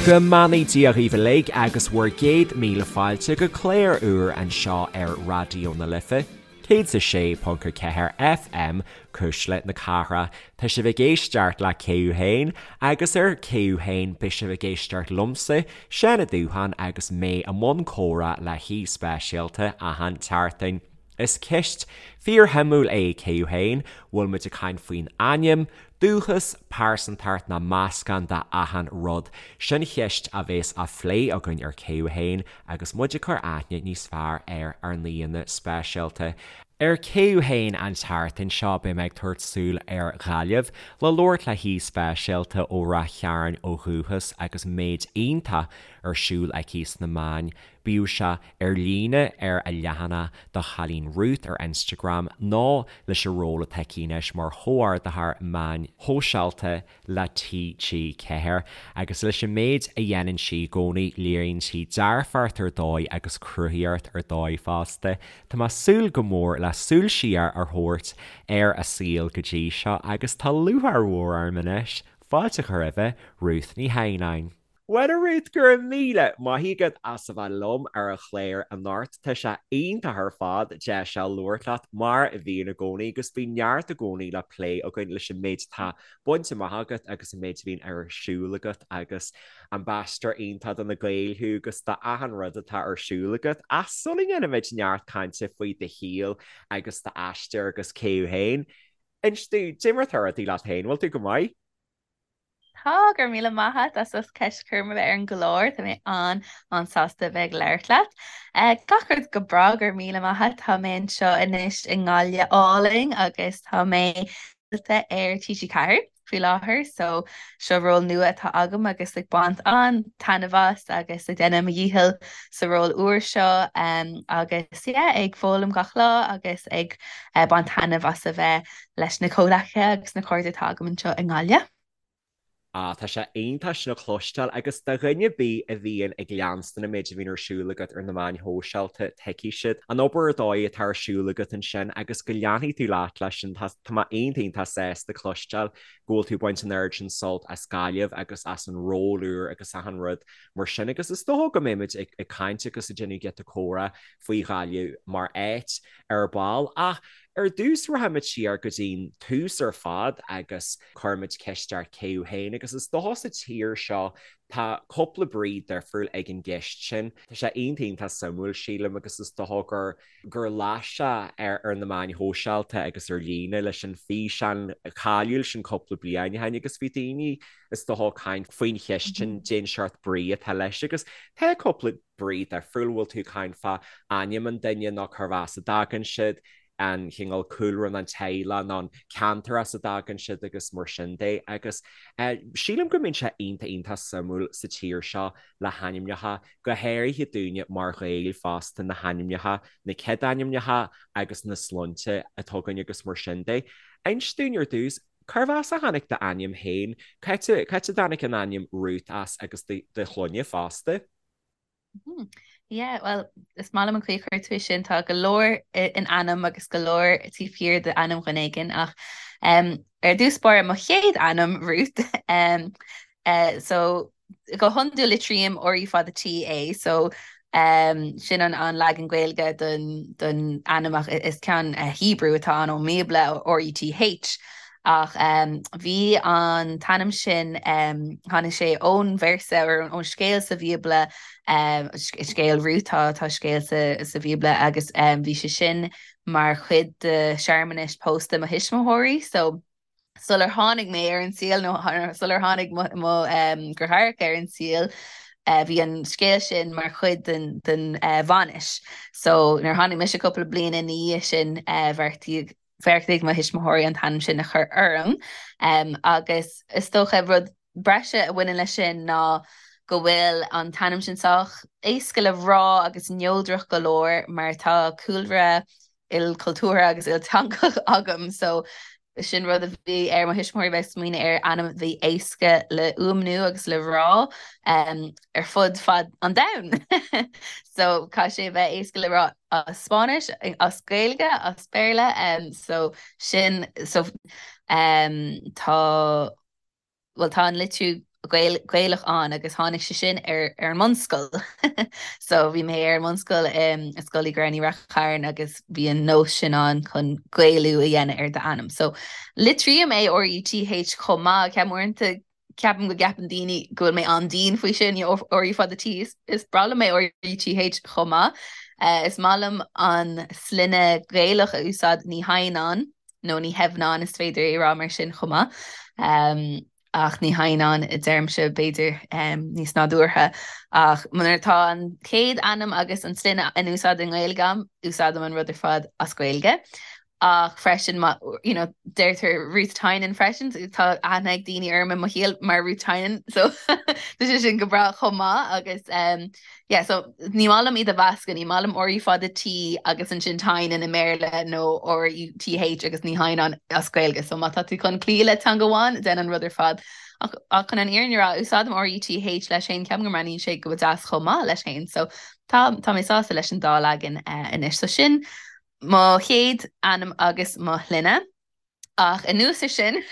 Go mbeannaí Dia dhaoibh uilig agus bhur gcéad míle fáilte go clár úr anseo ar Raidió na Life, 106.4 FM, Cuisle na Cathrach. Tá sibh ag éisteacht le Cé Thú Féin agus ar Cé Thú Féin beidh sibh ag éisteacht liomsa, Seán Ó Dúcháin agus mé i mbun comhrá le haoi speisialta achan tseachtain. Is ceist fíorshuimiúil é Cé Thú Féin, bhfuil muid ag caint faoin ainm, dúchas, pearsantacht nó meascán de achan rud? Sin cheist a bhéas á phlé againn ar Cé Thú Féin agus muid ag cur aithne níos fearr ar ár n-aíonna speisialta. Ar Cé Thú Féin an tseachtain seo beidh mé ag tabhairt súil ar Ghaillimh le labhairt le haoi speisialta ó Rath Chairn ó dhúchas agus méid iontach ar siúl aici sna meáin Bíodh sé ar líne ar a leathanach do Chailín Ruth ar Instagram nó leis an ról atá aici anois mar chomhordaitheoir meáin shóisialta le TG4. Agus leis an méid a dhéanann sí i gcónaí léiríonn sí dearfacht ar dóigh agus cruthaíocht ar dóigh fosta. Tá mé ag súil go mór le súil siar a thabhairt ar a saol go dtí seo agus tá lúcháir mhór orm anois fáilte a chur roimhe, Ruth Ní Theimhneáin. Bhuel a Ruth, go raibh míle maith agat as a bheith liom ar an chlár anocht. Tá sé iontach ar fad deis seo labhairt leat mar a bhíonn i gcónaí agus bíonn neart i gcónaí le plé againn leis an méid atá bainte amach agat agus an méid a bhíonn ar siúl agat agus ambasadóir iontach do na Gaeil thú agus do achan rud atá ar siúl agat. Ach sula ndéanaimid neart cainte faoi do shaol agus d'aistear agus cé thú féin, inis domh, cad é mar atá rudaí leat féin, bhfuil tú go maith? Tá, go raibh míle maith agat as ucht ceist a chur orm a bheith ar an gclár. Tá mé an-an-sásta a bheith ag labhairt leat. Gach rud go breá, go raibh míle maith agat. Tá mé anseo anois i nGaillimh álainn agus tá mé ar TG4 faoi láthair so seo ról nua atá agam agus ag baint an-taitneamh as agus ag déanamh mo dhícheall sa ról úr seo agus yeah ag foghlaim gach lá agus ag baint taitneamh as a bheith leis na comhghleacaithe agus na cairde atá agam anseo i nGaillimh. Ah, tá sé iontach sin a chloisteáil agus do dhuine ar bith a bhíonn ag leanstan an méid a bhíonn ar siúl agat ar na meáin shóisialta, tuigfidh siad an obair ar dóigh atá ar siúl agat ansin agus go leanfaidh tú leat leis sin. Tá mé iontach iontach sásta cloisteáil go bhfuil tú ag baint an oiread sin sult as Gaillimh agus as an ról úr agus achan rud mar sin agus is dócha go mbeimid ag caint agus ag déanamh giota comhrá faoi Ghaillimh mar áit ar ball ach Ar dtús rachaimid siar go dtí'n tús ar fad agus cuirfimid ceist ort cé thú féin agus is dócha sa tír seo tá cúpla brí difriúil ag an gceist sin. Tá sé iontach iontach suimiúil sílim agus is dócha gur gur las sé ar ar na meáin shóisialta agus ar líne leis an físeán cáiliúil sin cúpla bliain ó shin agus bhí daoine is dócha ag caint faoin cheist sin cén seort brí atá leis agus tá cúpla brí difriúil, bhfuil tú ag caint fá ainm an duine nó cérbh as a dtagann siad, an chineál cúlra nó an teaghlach nó an ceantar as a dtagann siad agus mar sin de. Agus sílim go mbíonn sé iontach iontach suimiúil sa tír seo le hainmneacha, go háirithe dúinne mar Ghaeil fosta, na hainmneacha, na céadainmneacha agus na sloinnte atá againn agus mar sin de. Inis dúinn ar dtús, cérbh as a tháinig d'ainm féin? Cá háit a dtáinig an ainm Ruth as agus do shloinne fosta? Yeah, well, is maith liom an chaoi a chuir tú é sin, tá go leor in ainm agus go leor taobh thiar d'ainm dhuine éigin ach um, ar dtús báire mo chéad ainm Ruth um, uh, so go hiondúil litrím R U fada T é so um, sin an, an leagan Gaeilge don, don ainm ach is ceann uh, Hebrew atá ann ón mBíobla R U T H Ach bhí an t-ainm sin, tháinig sé ón véarsa, or ón scéal sa Bhíobla, scéal Rút, tá scéal sa Bhíobla agus bhí sé sin mar chuid de shearmanais pósta mo thuismitheoirí. So sular tháinig mé ar an saol nó sular tháinig mo dheartháireacha ar an saol, bhí an scéal sin mar chuid den den bhainis. So nuair a tháinig mise cúpla bliain ina dhiaidh sin, bheartaigh Bheartaigh mo thuismitheoirí an t-ainm sin a chur orm agus is dócha rud breise a bhaineann leis sin ná go bhfuil an t-ainm sin sách éasca le rá agus neodrach go leor mar tá cúlra ilchultúrtha agus ilteangach agam so sin rud a bhí ar mo thuismitheoirí bheith ag smaoineamh ar ainm a bhí éasca le fhuaimniú agus le rá ar fud fad an domhain. So caithfidh sé a bheith éasca le rá as Spáinnis, as Gaeilge, as Béarla, so sin, so tá, bhuel tá an litriú Gaelach ann agus tháinig sé sin ar ar an mbunscoil. So bhí mé ar an mbunscoil i Scoil Uí Ghramhnaigh Ráth Chairn agus bhí an nós sin ann chun Gaelú a dhéanamh ar d'ainm. So litrím é R-U-T-H chomh maith, ceapaim uaireanta ceapaim go gceapann daoine go bhfuil mé an-dian faoi sin, you know, R U fada T, is is breá liom é R-U-T-H chomh maith. Is maith liom an sloinne Gaelach a úsáid Ní hAdhnáin nó Ní hEamhnáin is féidir é a rá mar sin chomh maith. Ach Ní hAdhnáin a deirimse, b'fhéidir, níos nádúrtha. Ach nuair atá an chéad ainm agus an sloinne in úsáid i nGaeilge agam, úsáidim an rud ar fad as Gaeilge. Ach freisin, má, you know, deirtear Ruth Tynan freisin, tá aithne ag daoine orm i mo shaol mar Ruth Tynan, so tá sé sin go breá chomh maith agus Yeah, so ní maith liom iad a mheascadh, ní maith liom R U fada T agus ansin Tynan i mBéarla nó R U T H agus Ní hAdhnáin as Gaeilge. So má tá tú chun cloí le teanga amháin, déan an rud ar fad. Ach, ach chun an fhírinne a rá, úsáidim R U T H leis féin, ceapaim go mbreathnaíonn sé go deas chomh maith leis féin. So tá, tá mé sásta leis an dá leagan uh, anois. So sin mo chéad ainm agus mo shloinne. Ach anuas ar sin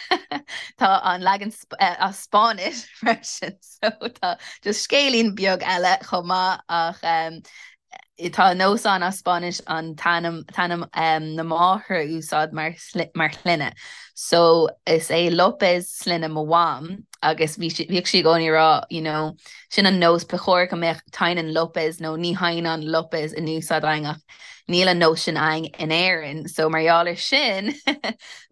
tá an leagan as Spáinnis freisin so tá just scéilín beag eile chomh maith ach tá nós ann as Spáinnis an t-ainm t-ainm na máthar a úsáid mar mar shloinne. So is é López sloinne mo mham agus bhí sí bhíodh sí i gcónaí ag rá you know sin an nós ba chóir go mbeadh Tynan López nó Ní hAdhnáin López in úsáid againn ach Níl an nós sin againn in Éirinn, so mar gheall ar sin,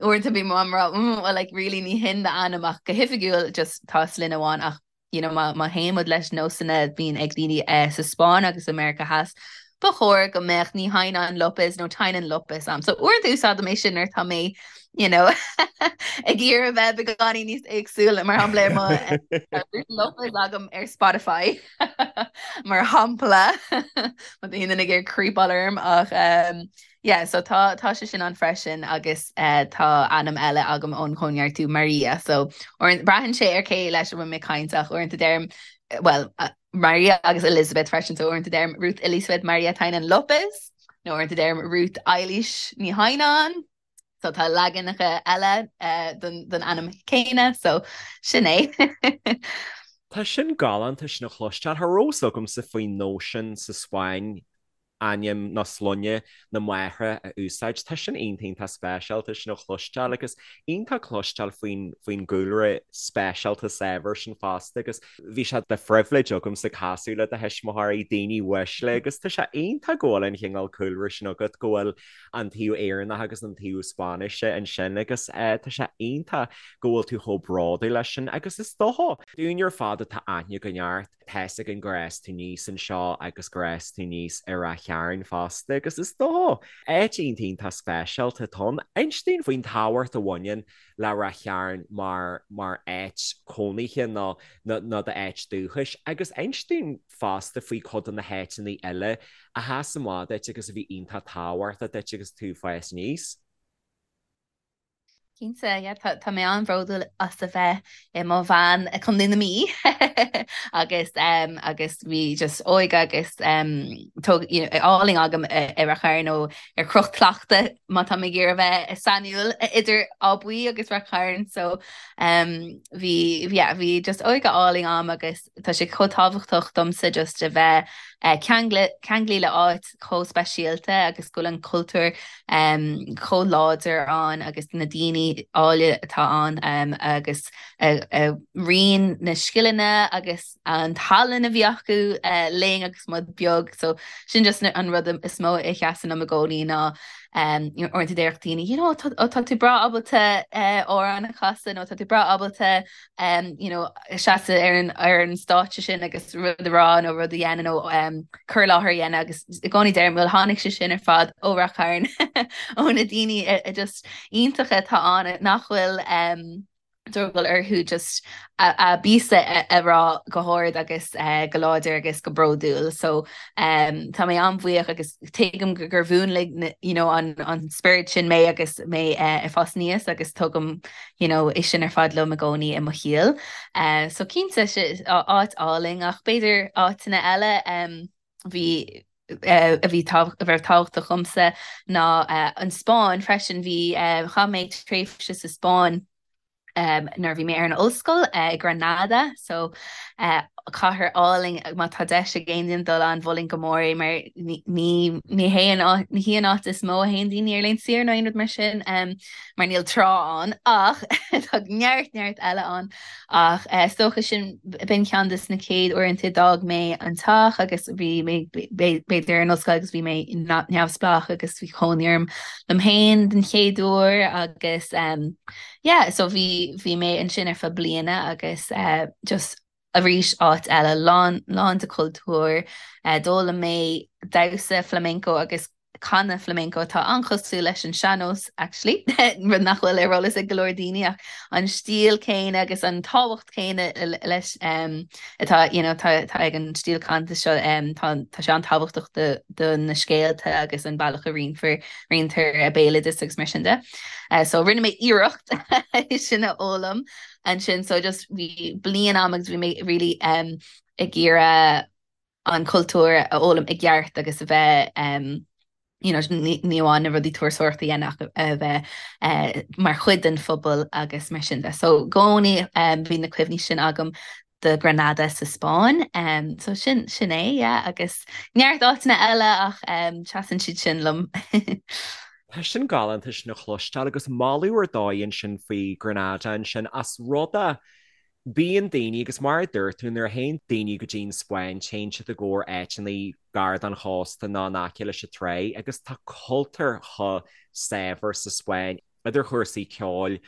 uaireanta bíonn mo mham ag rá, mm, well like really ní hin d'ainm ach go hoifigiúil just tá sloinne amháin ach you know má má théann muid leis nósanna a bhíonn ag daoine eh, sa Spáinn agus i Meiriceá Theas, ba chóir go mbeadh Ní hAdhnáin López nó Tynan López a'm. So uaireanta úsáidim é sin nuair atá mé you know ag iarraidh a bheith beagáinín níos éagsúla mar shampla ar mo eh, López agam ar Spotify. Mar shampla, má tá aon duine ag iarraidh creepáil orm ach um, yeah, so tá tá sé sin ann freisin agus uh, tá ainm eile agam ón chóineartú Maria, so uaireanta braitheann sé ar cé leis a bhfuil mé ag caint ach uaireanta deirim well uh, Maria agus Elizabeth freisin, so uaireanta deirim Ruth Elizabeth Maria Tynan Lopez nó uaireanta deirim Ruth Eilís Ní hAdhnáin. So tá leaganacha eile den ainm céanna, so sin é. Tá sin galánta sin a chloisteáil. Cha raibh fhios agamsa faoin nós sin sa Spáinn ainm nó sloinne na máithre a úsáid. Tá sin iontach iontach speisialta sin a chloisteáil agus iontach cloisteáil faoin faoin gcúlra speisialta saibhir sin fosta agus bhí sé de phribhléid agamsa casadh le do thuismitheoirí, daoine uaisle agus tá sé iontach go bhfuil an chineál cúlra sin agat go bhfuil an taobh Éireannach agus an taobh Spáinnise ansin agus tá sé iontach go bhfuil tú chomh bródúil leis sin agus is dócha, dúinn ar fad atá aithne againn ort, tá fhios againn gur fhás tú aníos anseo agus gur fhás tú aníos i Ráth Chairn fosta agus is dócha, áit iontach iontach speisialta atá ann. Inis dúinn faoin tábhacht a bhaineann le Ráth Chairn mar mar áit cónaithe nó nó d'áit dúchais agus inis dúinn fosta faoi cuid de na háiteanna eile a sheas amach duit agus a bhí iontach tábhachtach duit agus tú ag fás aníos. Cinnte, yeah, tá, tá mé an-bhródúil as a bheith i mo bhean i Contae na Mí agus um, agus bhí just óige agus um, tóg, you know, álainn agam i, i Rath Chairn nó ar Chnoc Tlachta má tá mé ag iarraidh a bheith sainiúil idir Áth Buí agus Rath Chairn so um, bhí, yeah, bhí just óige álainn agam agus Tá sé chomh tábhachtach domsa just a bheith ceanglaithe le áit chomh speisialta agus go bhfuil an cultúr chomh láidir ann agus na daoine áille atá ann agus a roinn na scileanna agus an tallann a bhí acu linn agus muid beag. So sin just an rud is mó a sheasann liom i gcónaí ná uaireanta déarfadh daoine, you know, tá tú breá ábalta amhrán a chasadh nó tá tú breá ábalta um, you know, seasamh ar an, ar an stáitse sin agus rud a rá nó rud a dhéanamh nó um, cur i láthair a dhéanamh agus i gcónaí deirim well tháinig sé sin ar fad ó Rath Chairn ó na daoine just iontacha atá ann nach bhfuil um, drogall orthu just a, a bpíosa a, a rá go hard agus uh, go láidir agus go bródúil. So um, tá mé an-bhuíoch agus tuigim gur mhúnlaigh you know, an, an spiorad sin mé agus mé uh, ag fás aníos agus tugaim you know, é sin ar fad liom i gcónaí i mo shaol. So cinnte, áit álainn ach b'fhéidir áiteanna eile bhí a bhí a bheith tábhachtach dhomsa ná an Spáinn freisin. Bhí chaith mé tréimhse sa Spáinn. Nuair a bhí mé ar an ollscoil i Granada, so cathair álainn, má tá deis ag aon duine dul ann, mholfainn go mór é mar ní ní hé an áit, ní hí an áit is mó a théann daoine ar laethanta saoire nó aon rud mar sin, mar níl trá ann ach tá neart neart eile ann. Ach is dócha sin, b'in ceann de na chéad uaireanta a d'fhág mé an teach agus bhí mé b'fhéidir ar an ollscoil agus bhí mé neamhspleách agus bhí cónaí orm liom féin den chéad uair agus Yeah, so bhí, bhí mé ansin ar feadh bliana agus eh, just arís áit eile lán, lán de chultúr. Eh, d'fhoghlaim mé damhsa flamenco agus canadh flamenco atá an-chosúil leis an sean-nós actually, rud nach bhfuil ar eolas ag go leor daoine ach an stíl céanna agus an tábhacht céanna leis um, atá you know, tá, tá ag an stíl canta seo um, tá, tá sé an-tábhachtach do, do na scéalta agus an bealach a roinnfear, roinntear béaloideas agus mar sin de. So rinne mé iarracht é sin a fhoghlaim ansin so just bhí bliain agam agus bhí mé really um, ag iarraidh an cultúr a fhoghlaim i gceart agus a bheith um, you know, ní amháin na rudaí turasóireachta a dhéanamh ach a bheith uh, mar chuid den phobal agus mar sin de. So i gcónaí um, bhí na cuimhní sin agam de Granada sa Spáinn. Um, so sin sin é, yeah, agus neart áiteanna eile ach um, seasann siad sin liom. Tá sin galánta sin a chloisteáil agus moladh ar dóigh ansin faoi Granada ansin as rud a bíonn daoine agus mar a dúirt tú nuair a théann daoine go dtí an Spáinn téann siad i gcomhair áiteanna gar don chósta nó in aice leis an trá agus tá cultúr chomh saibhir sa Spáinn idir chúrsaí ceoil,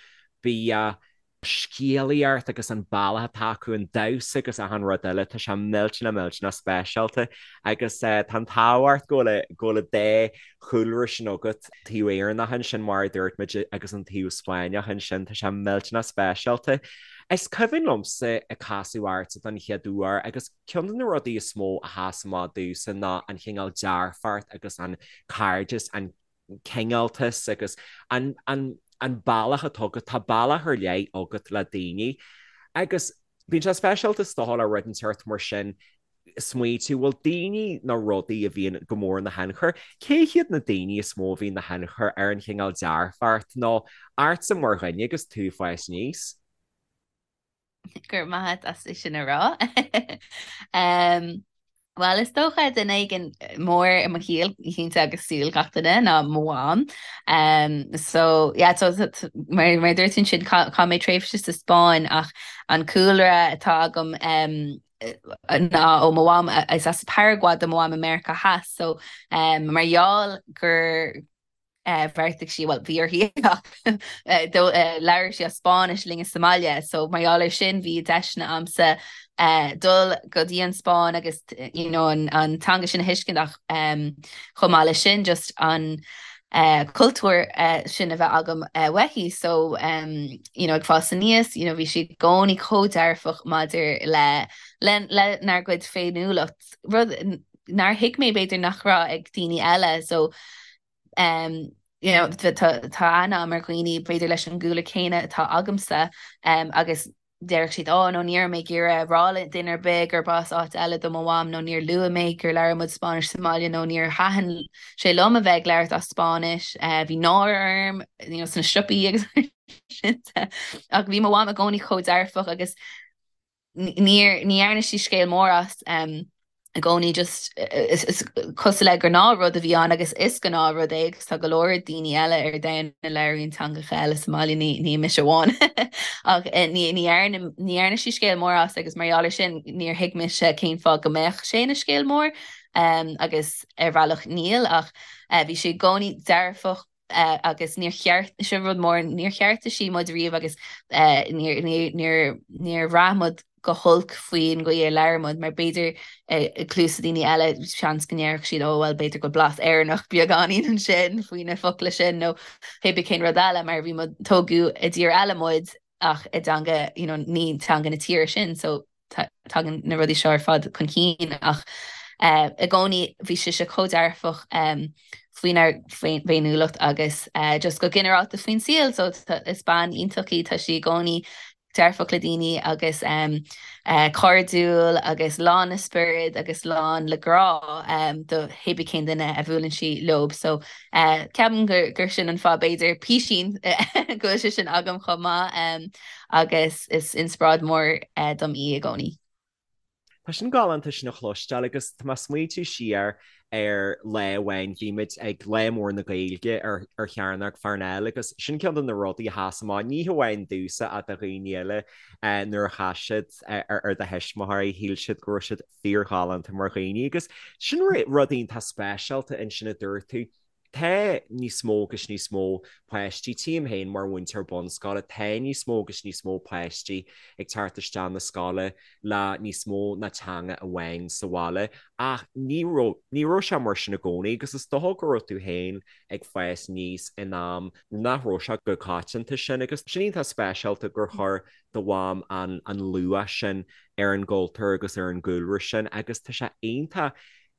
bia, scéalaíocht agus an bealach atá acu, an damhsa agus achan rud eile, tá sé millteanach millteanach speisialta agus tá an t-ádh ort go bhfuil go bhfuil an dá chúlra sin agat, taobh Éireannach ansin mar a dúirt muid agus an taobh Spáinneach ansin, tá sé millteanach speisialta. Is cuimhin liomsa ag casadh ortsa don chéad uair agus ceann de na rudaí is mó a sheas amach domhsa ná an chineál dearfacht agus an cairdeas, an cineáltas agus an an bealach atá agat, tá bealach ar leith agat le daoine agus bíonn sé speisialta is dócha le rud inteacht mar sin smaoitiú bhfuil daoine nó rudaí a bhíonn go mór ina thionchar, cé hiad na daoine is mó a bhíonn ina thionchar ar an chineál dearfacht nó ortsa mar dhuine agus tú ag fás aníos? Go raibh maith agat as é sin a rá. Bhuel, is dócha duine éigin mór i mo shaol, cinnte agus saol gach duine, ná mo mham. So, yeah, so, mar, mar a dúirt tú ansin, chaith mé tréimhse sa Spáinn ach an cúlra atá agam ná ó mo mham, is as Paraguay do mo mham i Meiriceá Theas, so mar gheall gur bheartaigh sí, bhuel, bhí uirthi ach labhair sí as Spáinnis linne sa mbaile, so mar gheall air sin bhí deiseanna a'msa dul go dtí an Spáinn agus you know an an teanga sin a thuiscint ach chomh maith leis sin just an cultúr sin a bheith agam uaithi so you know ag fás aníos you know bhí sí i gcónaí chomh dearfach maidir le le lenár gcuid féiniúlacht rud nár thuig mé b'fhéidir nach raibh ag daoine eile so um, you know, tá aithne agam ar dhaoine b'fhéidir leis an gcúlra céanna atá agamsa um, agus déarfadh siad, oh, no, ní raibh mé ag iarraidh rá le duine ar bith gurb as áit eile do mo mham nó níor luaigh mé gur labhair muid Spáinnis sa mbaile nó níor thaitin sé liom a bheith ag labhairt as Spáinnis, uh, bhí náire orm you know, sna siopaí agus sin ach bhí mo mham i gcónaí chomh dearfach agus Níor, ní dhearna sí scéal mór as i gcónaí just is cosúil le gnáthrud a bhí ann agus is gnáthrud é agus tá go leor daoine eile ar domhan a labhraíonn teangacha eile sa mbaile, ní ní mise amháin ach ní ní dhearna ní dhearna sí scéal mór as agus mar gheall air sin níor thuig mise cén fáth go mbeadh sé ina scéal mór agus ar bhealach níl ach bhí sí i gcónaí dearfach agus níor cheart, sin rud mór, níor cheartaigh sí muid riamh agus níor, níor, níor, níor bhraith muid go holc faoin gcaoi ar labhair muid mar b'fhéidir i gcluasa daoine eile seans go ndéarfadh siad oh well b'fhéidir go bhfuil blas Éireannach beagáinín ansin faoi na focla sin nó pé bith cén rud eile mar bhí muid, tógadh i dtír eile muid ach i dteanga you know ní teanga na tíre sin so tagann na rudaí seo ar fad chun cinn ach i gcónaí bhí sise chomh dearfach faoinár bhféiniúlacht agus just go ginearálta faoin saol so is bean iontach í, tá sí i gcónaí. dearfach le daoine agus cairdiúil agus lán le spiorad agus lán le grá do hébí cén duine a bhuaileann sí leo. So ceapaim gur sin an fáth b'fhéidir písín go bhfuil sé sin agam chomh maith agus is inspioráid mhór dom í i gcónaí. Tá sin galánta sin a chloisteáil agus tá mé ag smaointiú siar ar lá amháin bhí muid ag Lá Mór na Gaeilge ar ar Chearnóg Pharnell agus sin ceann de na rudaí a sheas amach, ní hamháin domhsa ach do dhaoine eile nuair a chas siad ar do thuismitheoirí, shíl siad go raibh siad fíorghalánta mar dhaoine agus sin rud iontach speisialta ansin a dúirt tú. Tá níos mó agus níos mó páistí, tchím féin mar mhúinteoir bunscoile, tá níos mó agus níos mó páistí ag teacht isteach na scoile le níos mó ná teanga amháin sa bhaile ach ní raibh, ní raibh sé mar sin i gcónaí agus is dócha go raibh tú féin ag fás aníos in am nach raibh sé chomh coitianta sin agus sin iontach speisialta gur chuir do mham an an luach sin ar an gcultúr agus ar an gcúlra sin agus tá sé iontach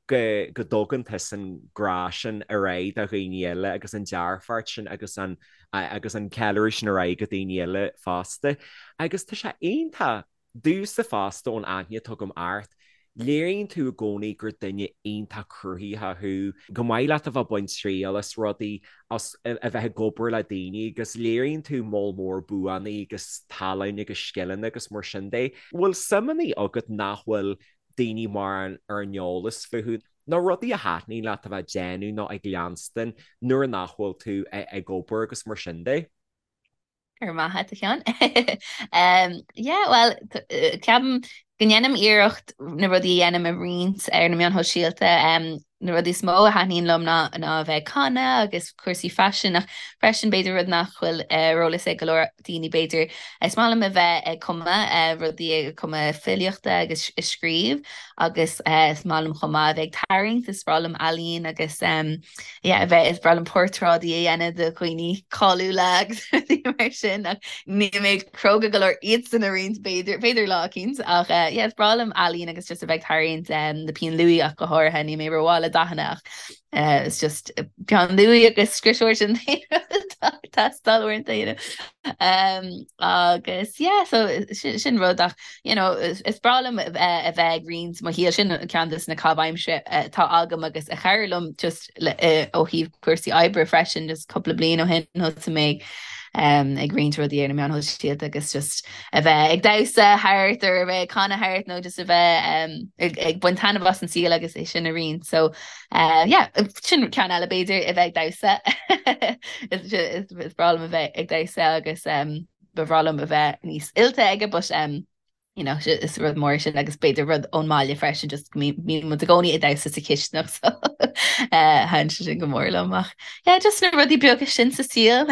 go go dtugann tusa an grá sin ar aghaidh do dhaoine eile agus an dearfacht sin agus an agus an ceiliúradh sin ar aghaidh go daoine eile fosta. Agus tá sé iontach domhsa fosta ón aithne atá agam ort, léiríonn tú i gcónaí gur duine iontach cruthaitheach thú, go maith leat a bheith ag baint triail as rudaí, as a bheith ag obair le daoine agus léiríonn tú moll mór buanna agus tallann agus scileanna agus mar sin de. Bhfuil suimeanna agat nach bhfuil daoine mórán ar an eolas fúthu, nó rudaí a thaitníonn leat a bheith ag déanamh nó ag leanstan nuair nach bhfuil tú ag obair agus mar sin de. Go raibh maith agat, a Sheáin. Yeah, bhuel, ceapaim go ndéanaim iarracht na rudaí a dhéanaim a roinnt ar na meáin shóisialta. Na rudaí is mó a thaitníonn liom ná ná a bheith ag canadh agus cúrsaí faisin ach freisin b'fhéidir rud nach bhfuil ar eolas ag go leor daoine b'fhéidir is maith liom a bheith ag cumadh rudaí ag cumadh filíochta agus ag scríobh agus is maith liom chomh maith a bheith ag tarraingt, is breá liom ealaín agus yeah a bheith is breá liom portráidí a dhéanamh de dhaoine cáiliúla agus rudaí mar sin ach níl mé cróga go leor iadsan a roinnt b'fhéidir b'fhéidir lá eicínt ach yeah is breá liom ealaín agus just a bheith ag tarraingt na pinn luaidhe ach go háirithe níl mé rómhaith le dathanna ach it's just peann luaidhe agus scriosóir sin teastáil uaireanta you know um, agus yeah so sin, sin rud ach you know is, is breá liom a bheith ag roinnt mo shaol sin ceann de na caitheamh aimsire atá agam agus a chabhraigh liom just le, ó thaobh cúrsaí oibre freisin just cúpla bliain ó shin thosaigh mé um, ag roinnt rudaí ar na meáin shóisialta agus just a bheith ag damhsa thart or a bheith ag canadh thart nó just a bheith um, ag, ag baint taitneamh as an saol agus é sin a roinnt. So uh, yeah, sin ceann eile b'fhéidir a bheith ag damhsa is, is, is breá liom a bheith ag damhsa agus um, ba bhreá liom a bheith níos oilte aige but um, you know, is rud mór sin agus b'fhéidir rud ón mbaile freisin just go mbíonn muid i gcónaí ag damhsa sa chisteanach so uh, thaitin sé sin go mór liom ach yeah, just na rudaí beaga sin sa saol.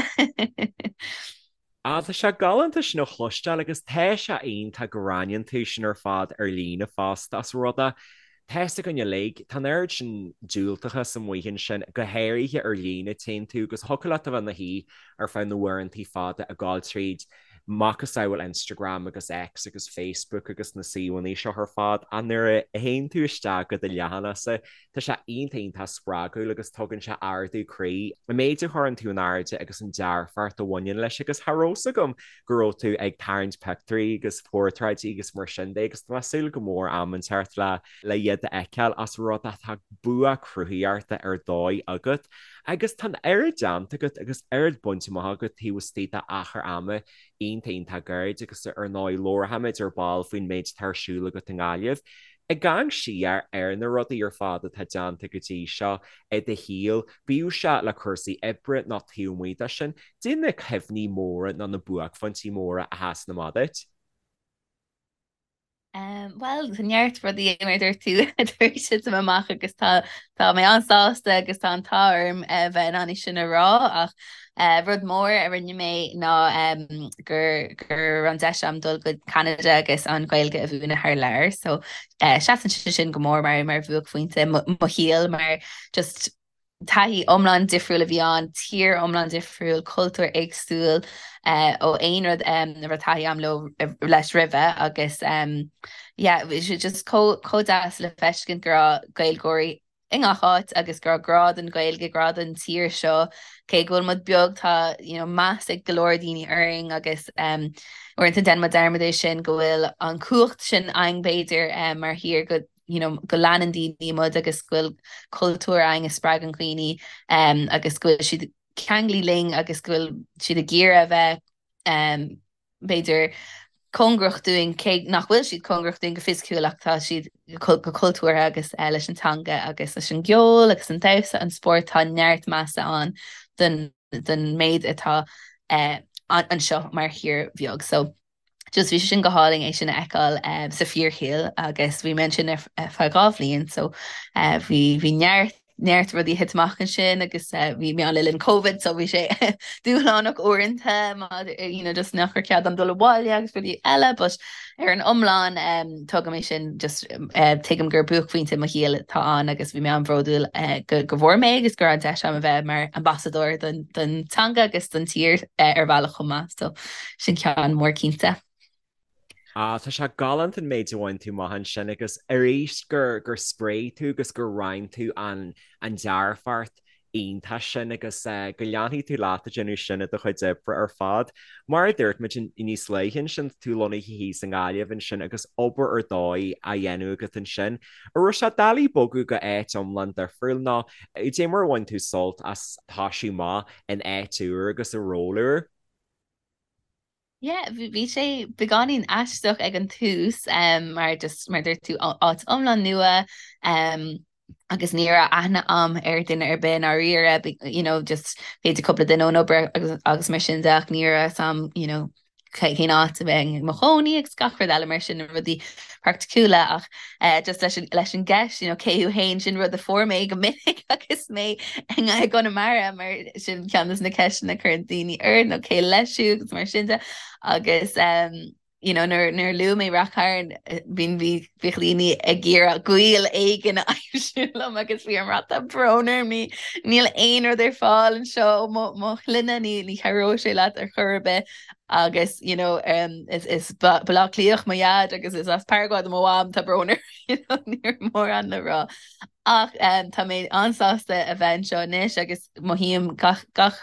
Ah, tá sé galánta sin a chloisteáil agus tá sé iontach go roinneann tú sin ar fad ar líne fosta as rud é tá fhios againn uilig, tá an oiread sin diúltachas amuigh ansin, go háirithe ar líne, téann tú agus thiocfadh leat a bheith ina shuí ar feadh na huaireantaí fada ag gabháil tríd macasamhail Instagram agus X agus Facebook agus na suíomhanna seo ar fad ach nuair a théann tú isteach go do leathanachsa tá sé iontach iontach spreagúil agus tugann sé ardú croí an méid a chuireann tú in airde agus an dearfacht a bhaineann leis agus cha raibh fhios agam go raibh tú ag tarraingt pictiúirí agus portráidí agus mar sin de agus tá mé ag súil go mór am inteacht le le iad a fheiceáil as rud atá bua cruthaíochta ar dóigh agat agus tá an oiread déanta agat agus oiread bainte amach agat taobh istigh d'achar ama iontach iontach gairid agus ar ndóigh labharfaimid ar ball faoin méid atá ar siúl agat i nGaillimh. Ag amharc siar ar na rudaí ar fad atá déanta go dtí seo i do shaol, bíodh sé le cúrsaí oibre nó taobh amuigh de sin, caidé na cuimhní móra nó na buaicphointí móra a sheasann amach duit. Bhuel, tá neart rudaí mar a dúirt tú tar éis titim amach agus tá tá mé an-sásta agus tá an t-ádh orm a bheith in ann é sin a rá ach rud mór a rinne mé ná gur go raibh an deis agam dul go Ceanada agus an Ghaeilge a mhúineadh thar lear so seasann sé sin go mór mar mar bhuaicphointe mo shaoil mar just taithí iomlán difriúil a bhí ann, tír iomlán difriúil, cultúr éagsúil ó aon rud a raibh taithí agam leo leis roimhe agus yeah bhí sé just chomh deas le feiscint go raibh Gaeilgeoirí. i ngach áit agus go raibh grá don Ghaeilge, grá don tír seo. Cé go bhfuil muid beag tá you know, meas ag go leor daoine orainn agus um, uaireanta déanann muid dearmad é sin go bhfuil an cumhacht sin againn b'fhéidir um, mar thír go you know, go leanann daoine muid agus go bhfuil cultúr againn a spreagann daoine um, agus go bhfuil siad ceangailte linn agus go bhfuil siad ag iarraidh a bheith um, b'fhéidir, cóngarach dúinn, cé nach bhfuil siad cóngarach dúinn go fisiciúil ach tá siad go cultúrtha agus leis an teanga agus leis an gceol agus an damhsa, an spórt, tá neart measa ann don don méid atá anseo mar thír bheag. So just bhí sé sin go hálainn é sin a fheiceáil sa fíorshaol agus bhí mé ansin ar feadh 2 bhliain so bhí bhí neart neart rudaí ag thit amach ansin agus bhí mé ann le linn Covid so bhí sé dúshlánach uaireanta you know, just nach raibh cead agam dul abhaile agus rudaí eile but ar an iomlán um, tugaim é sin just uh, tuigim gur buaicphointe mo shaoil atá ann agus bhí mé an-bhródúil uh, go, go bhfuair mé agus go raibh an deis agam a bheith mar ambasadóir don, don teanga agus don tír uh, ar bhealach chomh maith so sin ceann mór cinnte. Ah, tá sé galánta an méid a bhain tú amach ansin agus arís gur gur spréigh tú agus gur roinn tú an an dearfacht iontach sin agus go leanfaidh tú leat ag déanamh sin i do chuid oibre ar fad. Mar a dúirt muid níos luaithe ansin, tá tú lonnaithe thíos i nGaillimh ansin agus obair ar dóigh á dhéanamh agat ansin. An raibh sé doiligh bogadh go áit iomlán difriúil nó cad é mar a bhain tú sult as toisiú amach in áit úr agus i ról úr? Yeah, bhí sé beagáinín aisteach ag an tús um, mar just mar dúirt tú áit iomlán nua um, agus ní raibh aithne a'm ar duine ar bith ndáiríre, you know, just b'fhéidir cúpla duine ón obair agus, agus mar sin de ach ní raibh a fhios a'm, you know, cén áit a bheinn i mo chónaí agus gach rud eile mar sin na rudaí praiticiúla ach eh, just leis an, leis an gceist, you know, cé thú féin sin rud a fuair mé go minic agus mé i gConamara mar sin ceann de na ceisteanna a chuireann daoine ort nó cé leis thú agus mar sin de agus um, you know, nuair nuair a luaigh mé Rath Cairn bíonn bhí bhíodh daoine ag iarraidh gaol éigin a aimsiú liom agus bhí orm a rá tá brón orm ní níl aon rud ar fáil anseo mo mo shloinne ní ní chabhróidh sé leat ar chor ar bith agus you know, um, is, is Baile Átha Cliathach mo dhaid agus is as Paraguay do mo mham tá brón orm you know, ní raibh mórán le rá. Ach um, tá mé an-sásta a bheith anseo anois agus mothaím gach, gach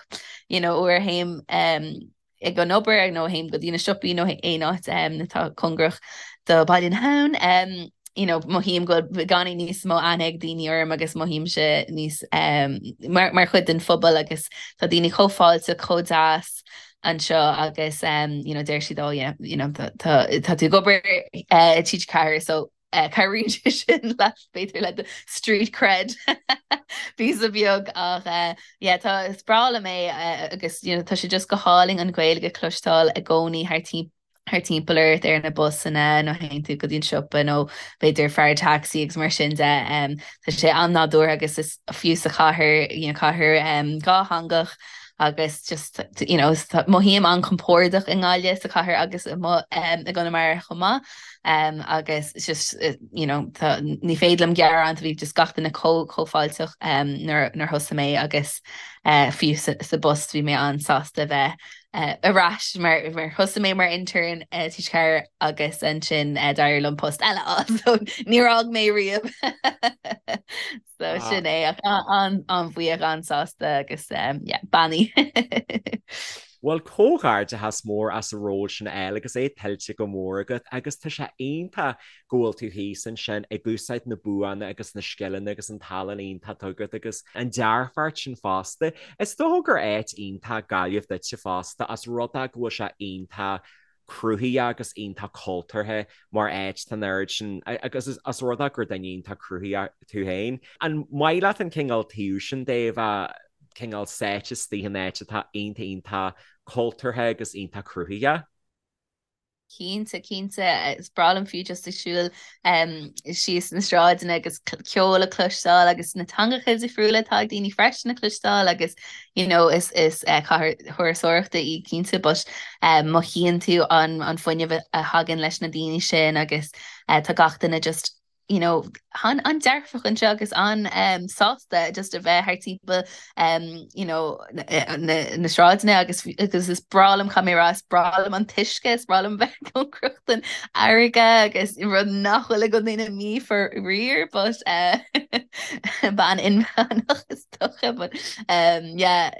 you know, uair a théim um, ag an obair nó théim go dtí na siopaí nó aon áit um, atá cóngarach do Baile na hAbhann. Um, you know, mothaím go bhfuil beagáinín níos mó aithne ag daoine orm agus mothaímse níos um, mar, mar chuid den phobal agus tá daoine chomh fáilteach, chomh deas anseo agus um, you know, deir siad oh, yeah, you know, tá, tá, tá tú ag obair uh, i TG4 so uh, cabhraíonn sé sin leat b'fhéidir le do street cred píosa beag ach uh, yeah, tá is breá liom é uh, agus you know, tá sé just go hálainn an Ghaeilge a chloisteáil i gcónaí thar timpeall thar timpeall ort ar na busanna nó théann tú go dtí an siopa nó b'fhéidir fear taxi agus mar sin de. Um, tá sé an-nádúrtha agus is fiú sa chathair, you know, cathair um, dhátheangach agus just you know, mothaím an-compordach i nGaillimh sa chathair agus i um, i gConamara chomh maith um, agus just you know, tá, ní féidir liom gearán bhí just gach duine chomh chomh fáilteach um, nuair, nuair thosaigh mé agus uh, fiú sa, sa bpost bhí mé an-sásta bheith uh, ar ais mar, mar thosaigh mé mar intern uh, TG4 agus ansin uh, d'éirigh liom post eile so níor fhág mé riamh. So ah. sin é ach an-bhuíoch an-sásta agus um, yeah, beannaithe. Bhuel comhghairdeachas mór as an ról sin a fháil agus é tuillte go mór agat agus tá sé iontach go bhfuil tú thíos ansin ag úsáid na buanna agus na scileanna agus an tallann iontach atá agat agus an dearfacht sin fosta. Is dócha gur áit iontach Gaillimh duitse fosta as rud é go bhfuil sé iontach cruthaíoch agus iontach cultúrtha mar áit tá an oiread sin agus as rud é gur duine iontach cruthaíoch tú féin. An maith leat an cineál taobh sin de a bheith cineál sáite istigh in áit atá iontach iontach cultúrtha agus iontach cruthaíoch? Cinnte, cinnte. Is breá liom fiú just ag siúl síos na sráideanna agus ceol a chloisteáil agus na teangacha difriúla atá ag daoine freisin a chloisteáil agus you know is is eh, cathair thurasóireachta í cinnte but eh, mothaíonn tú an an fuinneamh a thagann leis na daoine sin agus eh, tá gach duine just. you know, an-dearfach anseo agus an-sásta just a bheith thar timpeall um, you know, na, na, na sráideanna agus agus is breá liom caithfidh mé a rá is breá liom an t-uisce, is breá liom bheith cóngarach don fharraige agus rud nach bhfuil i gContae na Mí faraor, but uh, bean inmheánach is dócha, but um, yeah,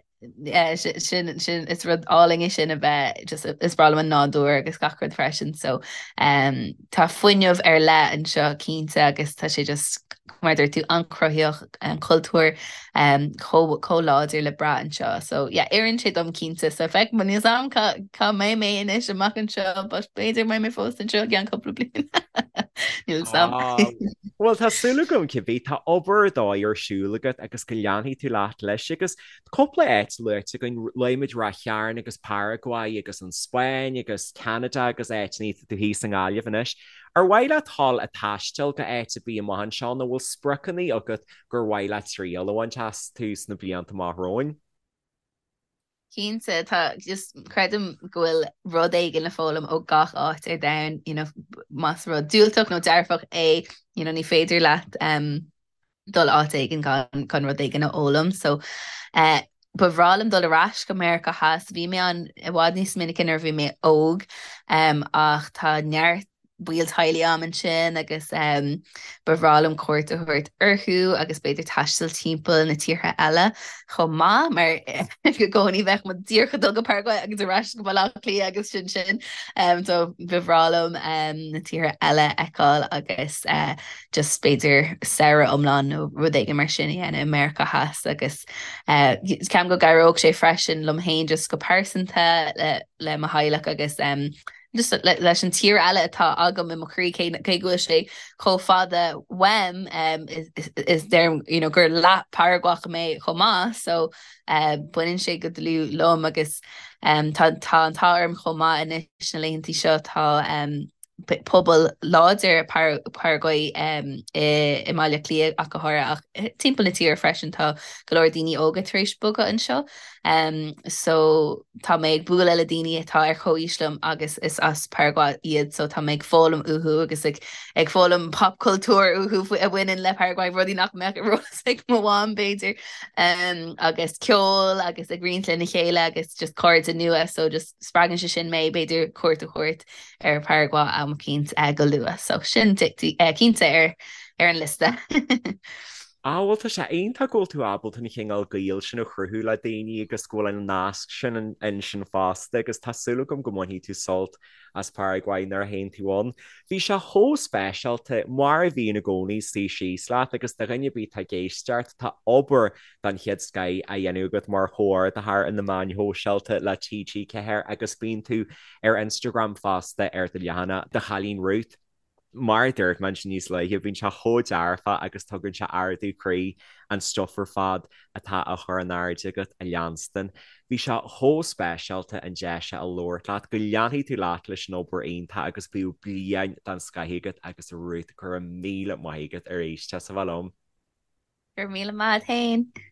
sin sin is rud álainn é sin a bheith just is breá liom an nádúr agus gach rud freisin so um, tá fuinneamh ar leith anseo cinnte agus tá sé just mar dúirt tú an-chruthaitheach an cultúr um, chomh chomh láidir le brath anseo so yeah oireann sé dom cinnte so feicfidh níl a fhios agam cá cá mbeidh mé anois amach anseo but b'fhéidir mbeidh mé fós anseo i gceann cúpla bliain níl a fhios agam. Ah, Bhuel tá súil agam cibé tá obair ar dóigh ar siúl agat agus go leanfaidh tú leat leis agus Cúpla áit luaite againn, luaigh muid Ráth Chairn agus Paraguay agus an Spáinn agus Ceanada agus áiteanna, tá tú thíos i nGaillimh anois. Ar mhaith leat dhul ag taisteal go áit ar bith amach anseo nó bhfuil spriocanna agat gur mhaith leat triail a bhaint astu sna blianta amach romhainn? Cinnte, tá, just creidim go bhfuil rud éigin le foghlaim ó gach áit ar domhan, you know, más rud diúltach nó dearfach é, you know, ní féidir leat um, dul áit éigin gan gan rud éigin a fhoghlaim. So eh, ba bhreá liom dul ar ais go Meiriceá Theas. Bhí mé ann i bhfad níos minice nuair a bhí mé óg um, ach tá neart baill teaghlaigh a'm ansin agus um, ba bhreá liom cuairt a thabhairt orthu agus b'fhéidir taisteal timpeall na tíortha eile chomh maith mar i gcónaí bheadh muid díreach ag dul go Paraguay agus ar ais go Baile Átha Cliath agus sin sin. Um, so ba bhreá liom um, na tíortha eile a fheiceáil agus uh, just b'fhéidir samhradh iomlán nó rud éigin mar sin a dhéanamh i Meiriceá Theas agus ceapaim go gcabhródh sé freisin liom féin just go pearsanta le, le mo theaghlach agus um, just le, leis an tír eile atá agam i mo chroí cé, cé go bhfuil sé chomh fada uaim um, is, is, is deirim you know, gur leath Paraguach mé chomh maith so uh, baineann sé go dlúth liom agus um, tá, tá an t-ádh orm chomh maith anois na laethanta seo tá um, pobal láidir Paraguay i mBaile Átha Cliath ach go háirithe ach timpeall na tíre freisin tá go leor daoine óga tar éis bogadh anseo. So tá mé ag bualadh le daoine atá ar chomhaois liom agus is as Paraguay iad so tá mé ag foghlaim uathu agus ag ag foghlaim popchultúr uathu a bhaineann le Paraguay, rudaí nach mbeadh ar eolas ag mo mham b'fhéidir. Agus ceol agus ag roinnt lena chéile agus just cairde nua so just spreagann sé sin mé b'fhéidir cuairt a thabhairt ar Paraguay am eicínt go luath. So sin cinnte ar ar an liosta. Ah bhuel tá sé iontach go bhfuil tú ábalta an chineál gaoil sin a chruthú le daoine agus go bhfuil an nasc sin ansin fosta agus tá súil agam go mbainfidh tú sult as Paraguay nuair a théann tú ann. Bhí sé chomh speisialta, mar a bhíonn i gcónaí, suí síos leat agus do dhuine ar bith atá ag éisteacht, tá obair den chéad scoith á dhéanamh agat mar chomhordaitheoir ar na meáin shóisialta le TG4 agus bíonn tú ar Instagram fosta ar do leathanach Do Chailín Ruth. Mar a dúirt mé ansin níos luaithe, bíonn sé chomh dearfach agus tugann sé ardú croí an stuif ar fad atá á chur in airde agat a leanstan. Bhí sé chomh speisialta an deis seo a labhairt leat, go leanfaidh tú leat leis an obair iontach agus bíodh bliain den scoith agat agus a Ruth, go raibh míle maith agat arís as a bheith liom. Go raibh míle maith agat féin.